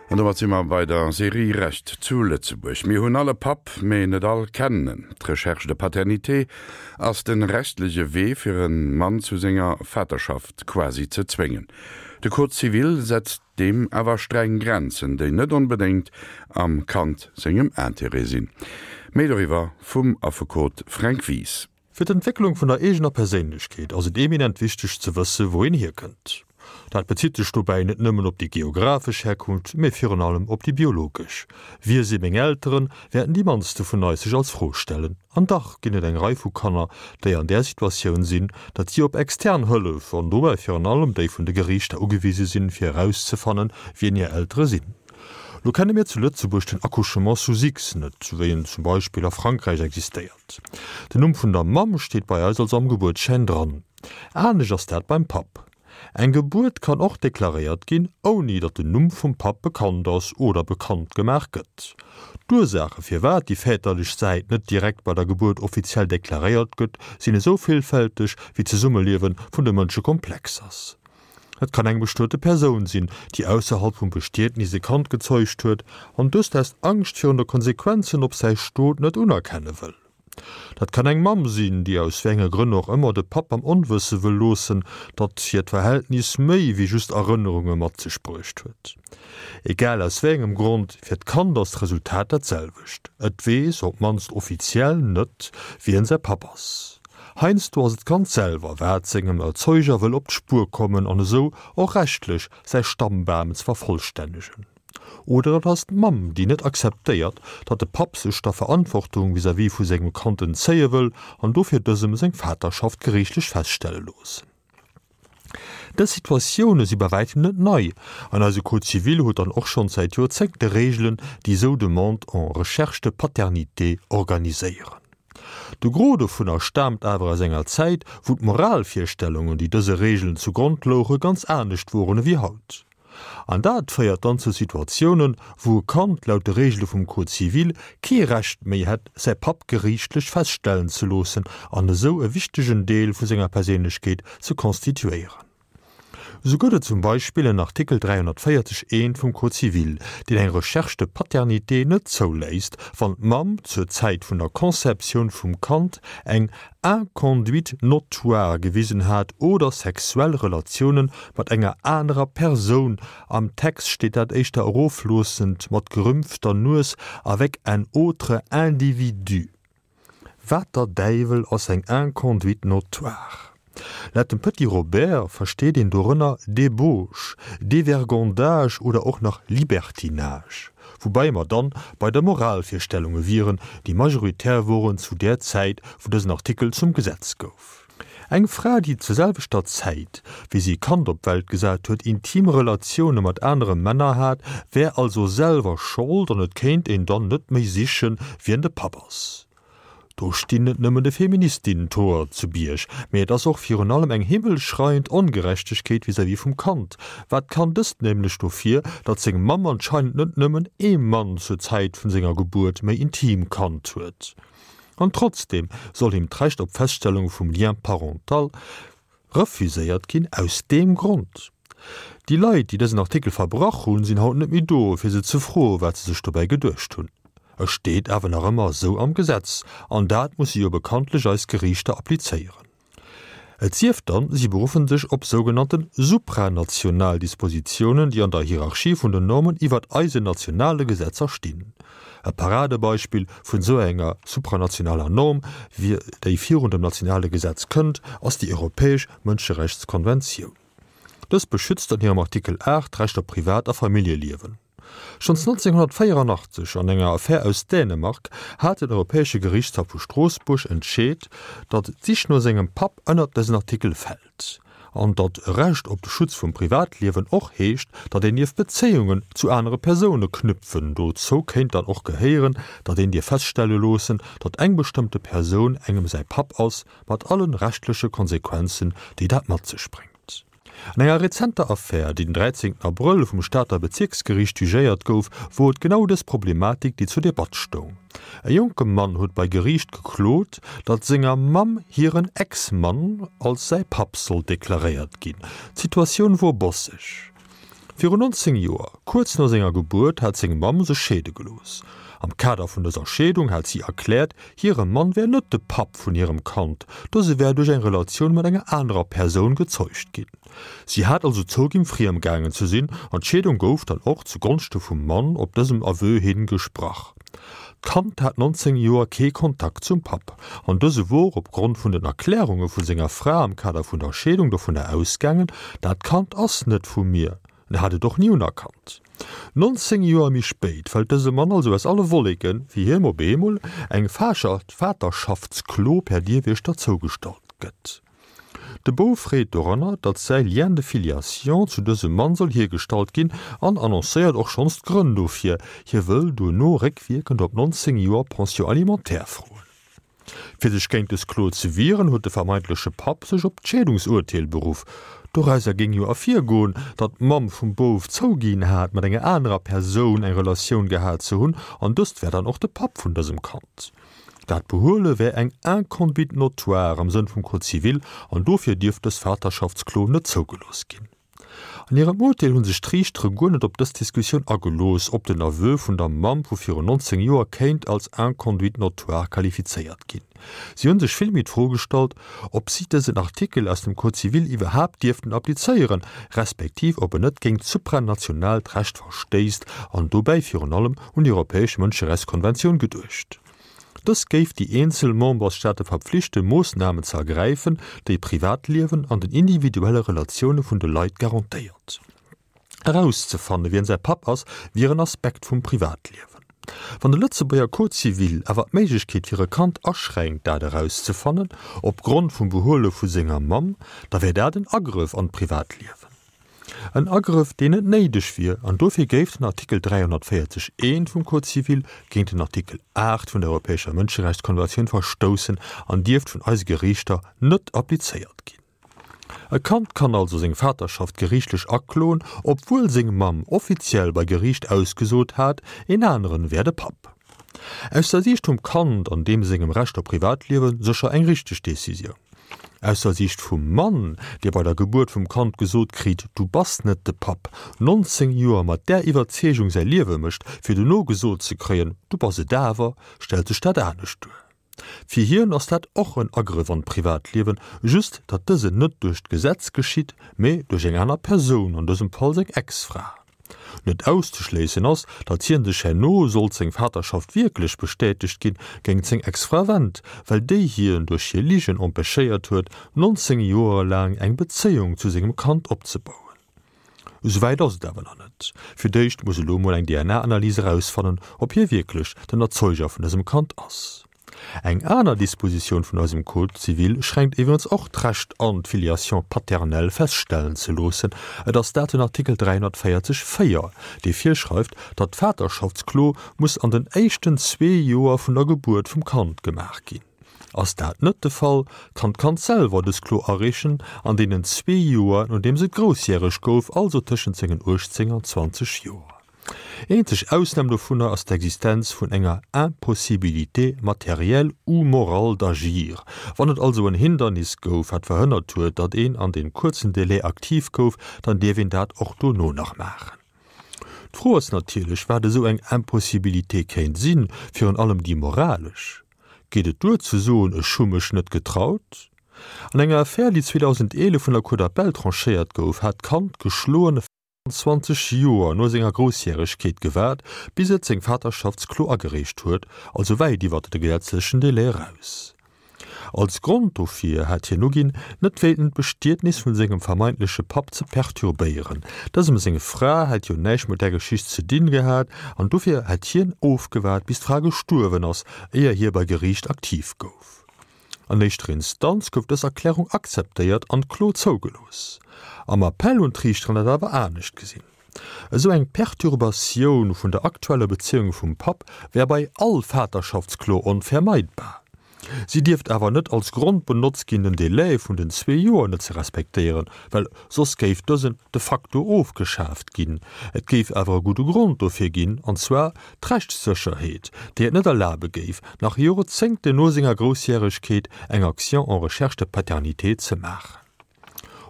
An domat si mer bei der Serie Recht zu Lëtzebuerg. Mir hunn all e Papp, mee net all kennen en. D'Recherche de paternité ass de rechtlege Wee fir e Mann zu senger Vaterschaft quasi ze zwéngen. De Code civil setzt deem awer streng Grenzen, déi net onbedéngt am Kand sengem Intérêt sinn. Méi doriwwer vum Affekot Fränk Wies. Fir d'Entwécklung vun der eegener Perséinlechkeet ass et eminent wichteg ze wësse wou een hierkënnt. Dat bezitt sech dobäi net nëmmen op déi geographesch Herkunft, mee virun allem op déi biologesch. Wie si meng Elteren, wäerten déi mannste vun eis sech als Fro stellen. An dach ginn et eng Rei vu Kanner, déi an där Situatioun sinn, datt si op extern Hëllef, an dobäi virun allem déi vun de Geriichter, ugewise sinn, fir erauszefannen, wien hir Eltere sinn. Lo kenne mir zu Lëtzebuerg den Accouchement sous X net, wéi en zum Beispill a Frankräich existéiert. Den Numm vun der Mamm steet bei eis also am Gebuertsschäin dran. Anescht ass dat beim Papp. Eng Gebuert kann och deklaréiert ginn, ouni datt den Numm vum Papp bekannt ass oder bekannt gemaach gëtt. D'Ursaache firwat déi väterlech Säit net direkt bei der Gebuert offiziell deklaréiert gëtt, sinn esou villfälteg, wéi d'Zesummeliewe vun de Mënsche komplex ass. Et kann eng bestuete Persoun sinn, déi ausserhalb vum Bestietnis e Kand gezeugt huet an dëst aus Angscht virun de Konsequenzen op säi Stot net unerkenne wëll. Dat kann eng Mamm sinn, déi aus wéi enge Grënn och ëmmer de Papp am Onwësse wëll loossen, datt hiert Verhältnis méi wéi just Erënnerunge mat sech bruecht huet. Egal aus wéi engem Grond, fir d'Kand ass d'Resultat dat selwecht, et weess, op d'mannst offiziell, net, wien säi Papp ass. Heiansdo ass et d'Kand selwer, wat sengem Erzeuger wëll op d'Spuer kommen an esou och rechtlech säi Stammbam ze vervollstännegen. Oder et ass d'Mamm, déi net akzeptéiert, datt de Papp sech der Verantwortung vis-à-vis vu sengem Kand entzéie wëll an dofir dësem seng Vaterschaft geriichtlech feststelle loossen. Dës Situatioune si bei wäitem net nei, an eise Code civil huet dann och schonns säit Joerzéngte Reegelen, déi esou Demande en recherche de paternité organiséieren. De Gros dovunner staamt awer aus enger Zäit, wou d'Moralvirstellungen, déi dëse Reegelen zu Grond louche, ganz anescht woren ewéi haut. An dat féiert dann zu Situatiounen, wou e Kand laut de Reegele vum Code civil kee Recht méi hätt, säi Papp geriichtlech feststellen ze loossen an esou e wichtegen Deel vu senger Perséinlechkeet ze constituéieren. Esou gëtt et zum Beispill en Artikel 340 I vum Code civil, deen eng Recherche de paternité net zouléisst, wann d'Mamm zur Zäit vun der Conceptioun vum Kand eng Inconduite notoire gewisen hat oder sexuell Relatioune mat enger anerer Persoun, am Text steet dat éischter erofloossend mat gerümpfter Nues, avec un autre individu. Wat der Däiwel ass eng Inconduite notoire? Laut dem Petit Robert versteet een dorënner Débauche, Dévergondage oder och nach Libertinage, woubäi mer dann bei der Moralvirstellunge wieren, déi majoritär woren zu där Zäit, wou dësen Artikel zum Gesetz gouf. Eng Fra, déi zur selwechter Zäit, wéi si e Kand op d'Welt gesat huet, intim Relatioune mat anere Männer hat, wär also selwer Schold an et kéint een dann net méi sichen, wien de Papp ass. Do stinn net nëmmen de Feministinnen d'Hoer zu Bierg, mee et ass och virun allem eng himmelschreiend Ongerechtegkeet vis-à-vis vum Kand. Wat kann dëst nämlech dofir, datt seng Mamm anscheinend net nëmmen ee Mann zur Zäit vun senger Gebuert méi intim kannt huet? An trotzdeem soll him d'Recht op Feststellung vum Lien parental Refuséiert ginn aus deem Grond. Déi Leit, déi dësen Artikel verbrach hunn, sinn haut net méi do, fir se ze froen, wat se sech dobäi geduecht hunn. E steet awer nach ëmmer esou am Gesetz, an dat musse jo bekanntlech eis Geriichter applizéieren. Et sief dann, si beruffen sech op sougenannte supranational Dispositiounen, déi an der Hierarchie vun den Normen iwwert eisen nationale Gesetzer stinn. E Paradebeispill vun esou enger supranationaler Norm, déi virun dem nationale Gesetz kënnt, ass déi Europäesch Mënscherechtskonventioun. Dës beschützt an hirem Artikel 8 d'Recht op Privat a Familljeliewen. Schonns 1984, an enger Affär aus Dänemark, hat den Europäesche Gerichtshaff vu Stroossbuerg entscheet, datt d'Sich no sengem Papp ënnert dësen Artikel fält. An datt e Recht op de Schutz vum Privatliewen och heescht, datt een dierf Bezéiungen zu anere Persoune knüpfen. Dozou kéint dann och gehéieren, datt een dierf feststelle loossen, datt eng bestëmmte Persoun engem säi Papp ass, mat allen rechtleche Konsequenzen, déi dat mat sech bréngt. An enger rezenter Affär, déi den 13 Abrëll vum Stater Bezierksgeriicht jugéiert gouf, wor et genau dës Problematik, déi zur Debatt stoung. E jonke Mann huet bei Geriicht geklot, datt senger Mamm hiren Ex-Mann als säi Papp sollt deklaréiert ginn. D'Situatioun wor bosseg. Virun 19 Joer, kuerz no senger Gebuert, hat seng Mamm sech scheede gelooss. Am Kader vun dëser Scheedung hat si erkläert, hire Mann wär net de Papp vun hirem Kand, dëse wär duerch eng Relatioun mat enger anerer Persoun gezeugt ginn. Si hat also zouginn, friem gaangen ze sinn an d'Scheedung gouf dann och zu Gonschte vum Mann op dësem Aveu hin gesprach. D'Kand hat 19 Joer kee Kontakt zum Papp an dëse wor op Grond vun den Erklärunge vu senger Fra am Kader vun der Scheedung dovunner ausgaangen, dat Kand ass net vu mir. En hat et och ni unerkannt. 19 Joer méi spéit fält dëse Mann also aus alle Wolleken, wéi hiem op eemol eng Vaterrschaftsklo per Dierwiechter zougestallt gëtt. De Bouf freet doranner, datt säi Lien de filiation zu dësem Mann soll hiergestallt ginn an annoncéiert och schonns d'Grënn dofir, hie wëll duerno réckwierkend op 19 Joer Pension alimentaire froen. Fir sech géint dës Klo ze wieren, huet de vermeintleche Papp sech op d'Scheedungsurteel beruff. Dorauser géing jo ervirgoen, datt d'Mamm vum Bouf zouginn hat, mat enger anerer Persoun eng Relatioun gehat ze hunn an dëst wär dann och de Papp vun dësem Kand. Dat Behuele wär eng Inconduite notoire am Sënn vum Code civil an dofir dierft dës Vaterschaftsklo net zougelooss ginn. An hirem Urteel hu sech d'Riichtere guer net op dës Diskussioun agelooss, ob den Aveu vun der Mamm vu virun 19 Joer kéint als Inconduite notoire qualifizéiert ginn. Si hu sech villméi d'Fro gestallt, ob si dësen Artikel aus dem Code civil iwwerhaapt dierften applizéieren, respektiv ob en net géint supranationaalt Recht verstéisst an dobäi virun allem un déi Europäesch Mënscherechtskonventioun geduecht. Dës géif déi eenzel Membersstaate verpflichten, Moossnamen ze ergräifen, déi Privatliewen an den individuelle Relatioune vun de Leit garantéiert. Erauszefanne wien säi Papp ass, wier en Aspekt vum Privatliewen. Wann de Lëtzebuerger Code civil awer d'Méiglechkeet fir e Kand aschränkt, dat erauszefannen, op Grond vum Behuele vu senger Mamm, da wär dat en Agrëff an d'Privatliewen. En Agrëff, deen net néideg wier, an dofir géif den Artikel 340 I vum Code civil géint den Artikel 8 vun der Europäescher Mënscherechtskonventioun verstoussen an dierft vun eise Geriichter net applizéiert ginn. E Kand kann also seng Vaterschaft geriichtlech akloen, obwuel seng Mamm offiziell bei Geriicht ausgesot hat, een aneren wär de Papp. Aus der Siicht vum Kand an deem sengem Recht op Privatliewe sécher eng richteg Decisioun. Aus der Siicht vum Mann, dee bei der Gebuert vum Kand gesot kritt, du bass net de Papp, 19 Joer mat där Iwwerzeegung säi Liewe mécht, fir dono gesot ze kréien, du bass et awer, stellt sech dat anescht duer. Fir hien ass dat och en Agrëff an d'Privatliewen, just datt dësen net duerch d'Gesetz geschitt, mee duerch eng aner Persoun, an dësem Fall seng Ex-Fra. Net auszeschléissen ass, datt hien sech herno, sollt seng Vaterschaft wierklech bestätegt ginn, géingt seng Ex-Fra wennt, well déi hien duerch hir Ligen empêchéiert huet, 19 Joer laang eng Bezéiung zu sengem Kand opzebauen. Esouwäit ass et awer nach net. Fir d'éischt muss elo mol eng DNA-Analys erausfannen, ob hie wierklech den Erzeuger vun dësem Kand ass. Eng aner Dispositioun vun eisem Code civil schränkt iwwerens och d'Recht an, d'Filiation paternelle feststellen ze loossen. Et ass dat den Artikel 340 4, dee virschreift, datt d'Vaterschaftsklo muss an den éischten zwee Joer vun der Gebuert vum Kand gemaach ginn. Ass dat net de Fall, kann d'Kand selwer dës Klo areechen an deenen zwee Joer, nodeems et groussjäreg gouf, also tëschent sengen 18 an 20 Joer. Eenzeg Ausnam dovunner ass d'Existenz vun enger Impossibilité matérielle ou morale d'agir. Wann et also en Hindernis gouf, wat verhënnert huet, datt een an deem kuerzen Délai aktiv gouf, dann dierf een dat och dono nach maachen. D'Fro ass natierlech, wat esou eng Impossibilité kéint sinn, virun allem déi moralesch. Geet et duer ze soen, ech hu mech net getraut? An enger Affär, déi 2011 vun der Cour d'appel tranchéiert gouf, hat d'Kand geschloen, 20 Joer no senger Groussjäregkeet gewaart, bis et seng Vaterschaftsklo agereecht huet, also wäit iwwert de gesetzlechen Delai eraus. Als Grond dofir hat hien uginn, net wéilten d'Bestietnis vun sengem vermeintleche Papp ze perturbéieren. Dësem seng Fra hätt jo näischt mat där Geschicht ze dinn gehat an dofir hätt hien ofgewaart, bis d'Fra gestuerwen ass, éier hie bei Geriicht aktiv gouf. An éischter Instanz gouf dës Erklärung akzeptéiert an d'Klo zougelooss. Am Appell hunn d'Riichteren dat awer anescht gesinn. Esou eng Perturbatioun vun der aktueller Bezéiung vum Papp wär bei all Vaterschaftsklo onvermeidbar. Si dierft awer net als Grond benotzt ginn, den Delai vun den zwee Joer net ze respektéieren, well soss géif dësen de facto ofgeschaaft ginn. Et géif awer e gudde Grond dofir ginn, an zwar d'Rechtssécherheet, déi et net erlabe géif, nach Jorzéngten no senger Groussjäregkeet eng Action en recherche de paternité ze maachen.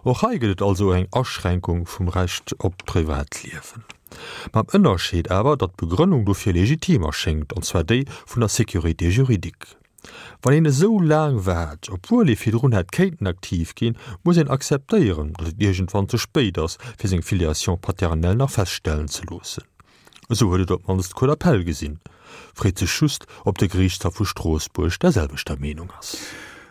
Och hei gëtt et also eng Aschränkung vum Recht op d'Privatliewen. Mam Ënnerscheed awer, datt d'Begrënnung dofir legitim erschéngt, an zwar déi vun der Sécurité juridique. Wann een esou laang waart, obwuel ee virdrun hätt kéinten aktiv ginn, muss een akzeptéieren, datt et iergendwann ze spéit ass, fir seng Filiation paternelle nach feststellen ze loossen. Esou huet et op d'mannst d'Cour d'appel gesinn. Freet sech just, ob de Geriichtshaff vu Stroossbuerg der selwechter Meenung ass.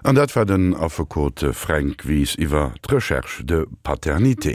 An dat war den Affekot Fränk Wies iwwer d'Recherche de paternité.